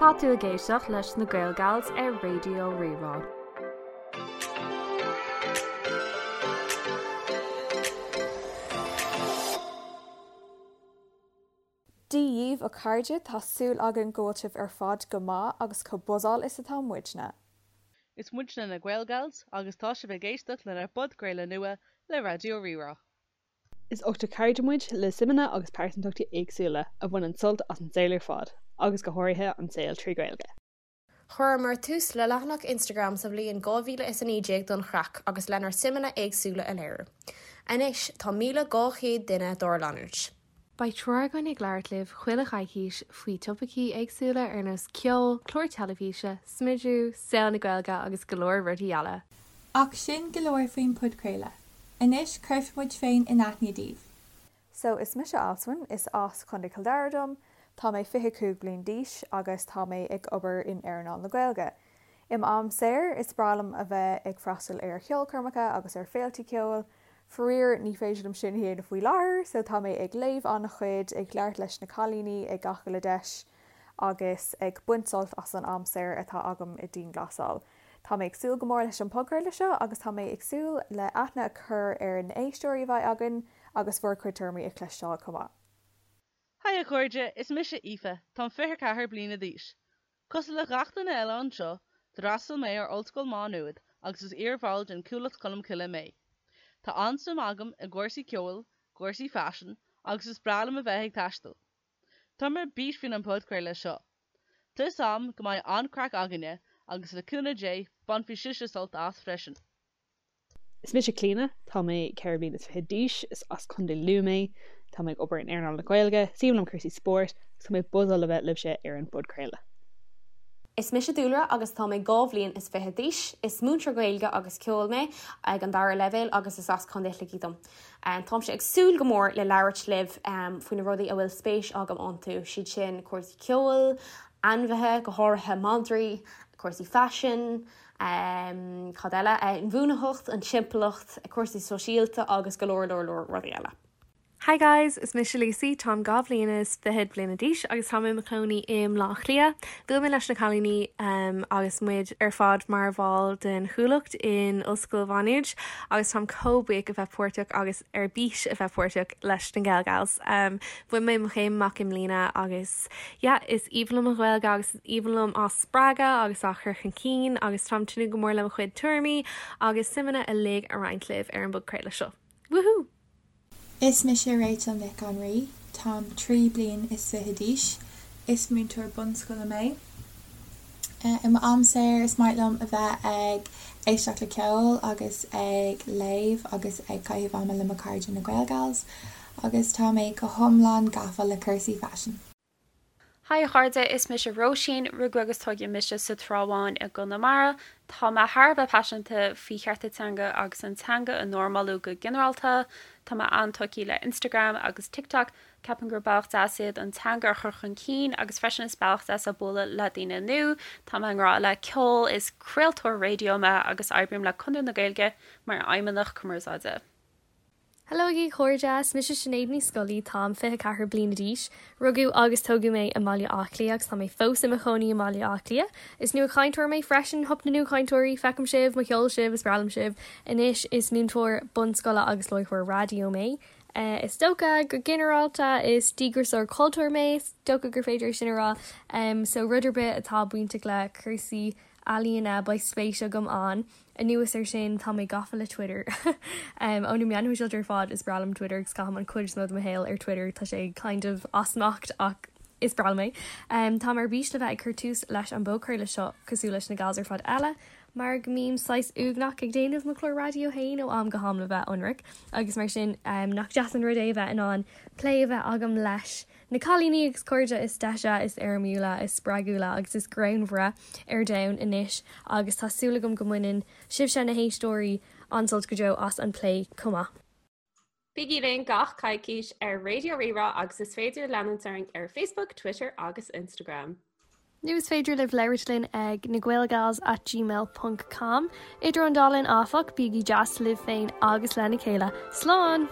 Tá tú ag éisteacht leis na Gaelgals ar Raidió Rí-Rá. Dia dhíbh a chairde, tá súil againn go bhfuil sibh ar fad go maith agus chomh buzzáil is atá muidne. Is muidne na Gaelgals agus tá sibh ag éisteacht lenár bpodchraoladh nua le Raidió Rí-Rá. Is ochtar cairde muid, le suimeanna agus pearsantachtaí éagsúla, a bhaineann sult as an saol ar fad, agus go háirithe an saol trí Ghaeilge. Chuireamar tús le leathanach Instagram sa bhliain 2019 don chraic agus lenár suimeanna éagsúla a léiriú. Anois tá 1,200 duine dár leanúint. Beidh triúr againn ag labhairt libh chuile choicís faoi topaicí éagsúla ar nós ceol, cláir teilifíse, smidiú, saol na Gaeilge agus go leor rudaí eile. Ach sin go leor faoin podchraoladh. Anois cuirfidh muid féin in aithne daoibh. So is mise Alswyn, is as Contae Chill Dara dom, tá mé 25 bliain d'aois agus tá mé ag obair in earnáil na Gaeilge. I m'am saor, is breá liom a bheith ag freastal ar cheolchoirmeacha agus ar féiltí ceoil. Faraor, ní féidir liom sin a dhéanamh faoi láthair, so tá mé ag léamh an-chuid, ag labhairt leis na cailíní ag gach uile deis agus ag baint sult as an am saor atá agam i dianghlasáil. Tá mé ag súil go mór leis an podchraoladh seo agus tá mé ag súil le aithne a chur ar na éisteoirí a bheidh againn agus bhur gcuid tuairimí a chloisteáil chomh maith. Haigh a chairde, is mise Aoife, táim 24 bliana d'aois. Cosúil le gach duine eile anseo, d'fhreastail mé ar Ollscoil Má Nuad agus is iarbhall den Chuallacht Cholmcille mé. Tá an-suim agam i gcúrsaí ceoil, cúrsaí faisin agus is breá liom a bheith ag taisteal. Táim ar bís faoin an podchraoladh seo. Tá 'fhios a'm go mbeidh an-craic againne agus le cúnamh Dé bainfidh sibhse sult as freisin. Is mise Clíona, tá mé 24 bliana d'aois, is as Contae Lú mé, tá mé ag obair in earnáil na Gaeilge, is aoibhinn liom cúrsaí spóirt agus tá mé buzzáil le bheith libhse ar an bpodchraoladh. Is mise Dúlra agus tá mé 22 bhliain is d'aois. Is múinteoir Gaeilge agus ceoil mé ag an dara leibhéal agus is as Contae Shligigh dom. Táimse ag súil go mór le labhairt libh faoi na rudaí a bhfuil spéis agam iontu, siad sin cúrsaí ceoil, ainmhithe, go háirithe madraí, cúrsaí faisin, cad eile, inbhuanaitheacht, an timpeallacht, cúrsaí sóisialta agus go leor leor leor rudaí eile. Hi guys, is mise Lucy, táim 2 bhliain is fichead bliana d'aois agus táim i mo chónaí i mBleá Cliath. Bhuail mé leis na cailíní agus muid ar fad mar bhall den Chuallacht in Ollscoil Mhá Nuad agus táim chomh buíoch a bheith páirteach agus ar bís a bheith páirteach leis na Gaelgals. Bhain mé mo chéim amach i mbliana agus yeah, is aoibhinn liom an Ghaeilge agus is aoibhinn liom á spreagadh agus á chur chun cinn agus táim tnúth go mór le mo chuid tuairimí agus suimeanna uilig a roinnt libh ar an bpodchraoladh seo. Woohoo! Is mise Rachel Nic an Rí, táim 23 bliain is d'aois, is múinteoir bunscoile mé. I m'am saor is maith liom a bheith ag éisteacht le ceol agus ag léamh agus ag caitheamh ama le mo chairde na Gaelgals agus tá mé go hiomlán gafa le cúrsaí faisin. Hi a chairde, is mise Róisín, rugadh agus tógadh mise sa Trá Bháin i gConamara. Tá mé thar a bheith paiseanta faoi chearta teanga agus an teanga a normalú go ginearálta. Tá mé an-tógtha le Instagram agus TikTok, ceapaim gur bealach deas iad an teanga a chur chun cinn agus freisin is bealach deas é bualadh le daoine nua. Tá mé i ngrá le ceol, is craoltóir raidió mé agus oibrím le Conradh na Gaeilge mar fheidhmeannach cumarsáide. Hello agaibh a chairde, is mise Sinéad Ní Scolaí, táim 24 bliana d'aois. Rugadh agus tógadh mé i mBaile Átha Cliath agus tá mé fós i mo chónaí i mBaile Átha Cliath. Is nuachainteoir mé freisin, hup na nuachainteoirí, feicim sibh, mo cheol sibh, is breá liom sibh. Anois is múinteoir bunscoile agus láithreoir raidió mé. Is dócha, go ginearálta, is díograiseoir cultúir mé, is dócha gur féidir é sin a rá. So rud ar bith atá bainteach le cúrsaí ealaíona, beidh spéis agam ann. Anuas air sin, tá mé gafa le Twitter. Ó na meáin shóisialta ar fad, is breá liom Twitter agus caithim an chuid is mó de mo shaol ar Twitter. Tá sé kind of as smacht ach is breá liom é. Táim ar bís le bheith ag cur tús leis an bpodchraoladh seo cosúil leis na gals ar fad eile, mar go mbím saghas uaigneach ag déanamh mo chlár raidió féin ó am go ham le bheith ionraic agus mar sin nach deas an rud é a bheith in ann plé a bheith agam leis na cailíní agus cairde is deise, is éirimiúla, is spreagúla agus is greannmhaire ar domhan anois agus tá súil agam go mbaineann sibhse, na héisteoirí, an-sult go deo as an bplé chomh maith. Bígí linn gach coicís ar Raidió Rí-Rá agus is féidir leanúint orainn ar Facebook, Twitter agus Instagram. Nó is féidir libh labhairt linn ag nagaelgals at gmail ponc com. Idir an dá linn áfach, bígí deas libh féin agus lena chéile. Slán!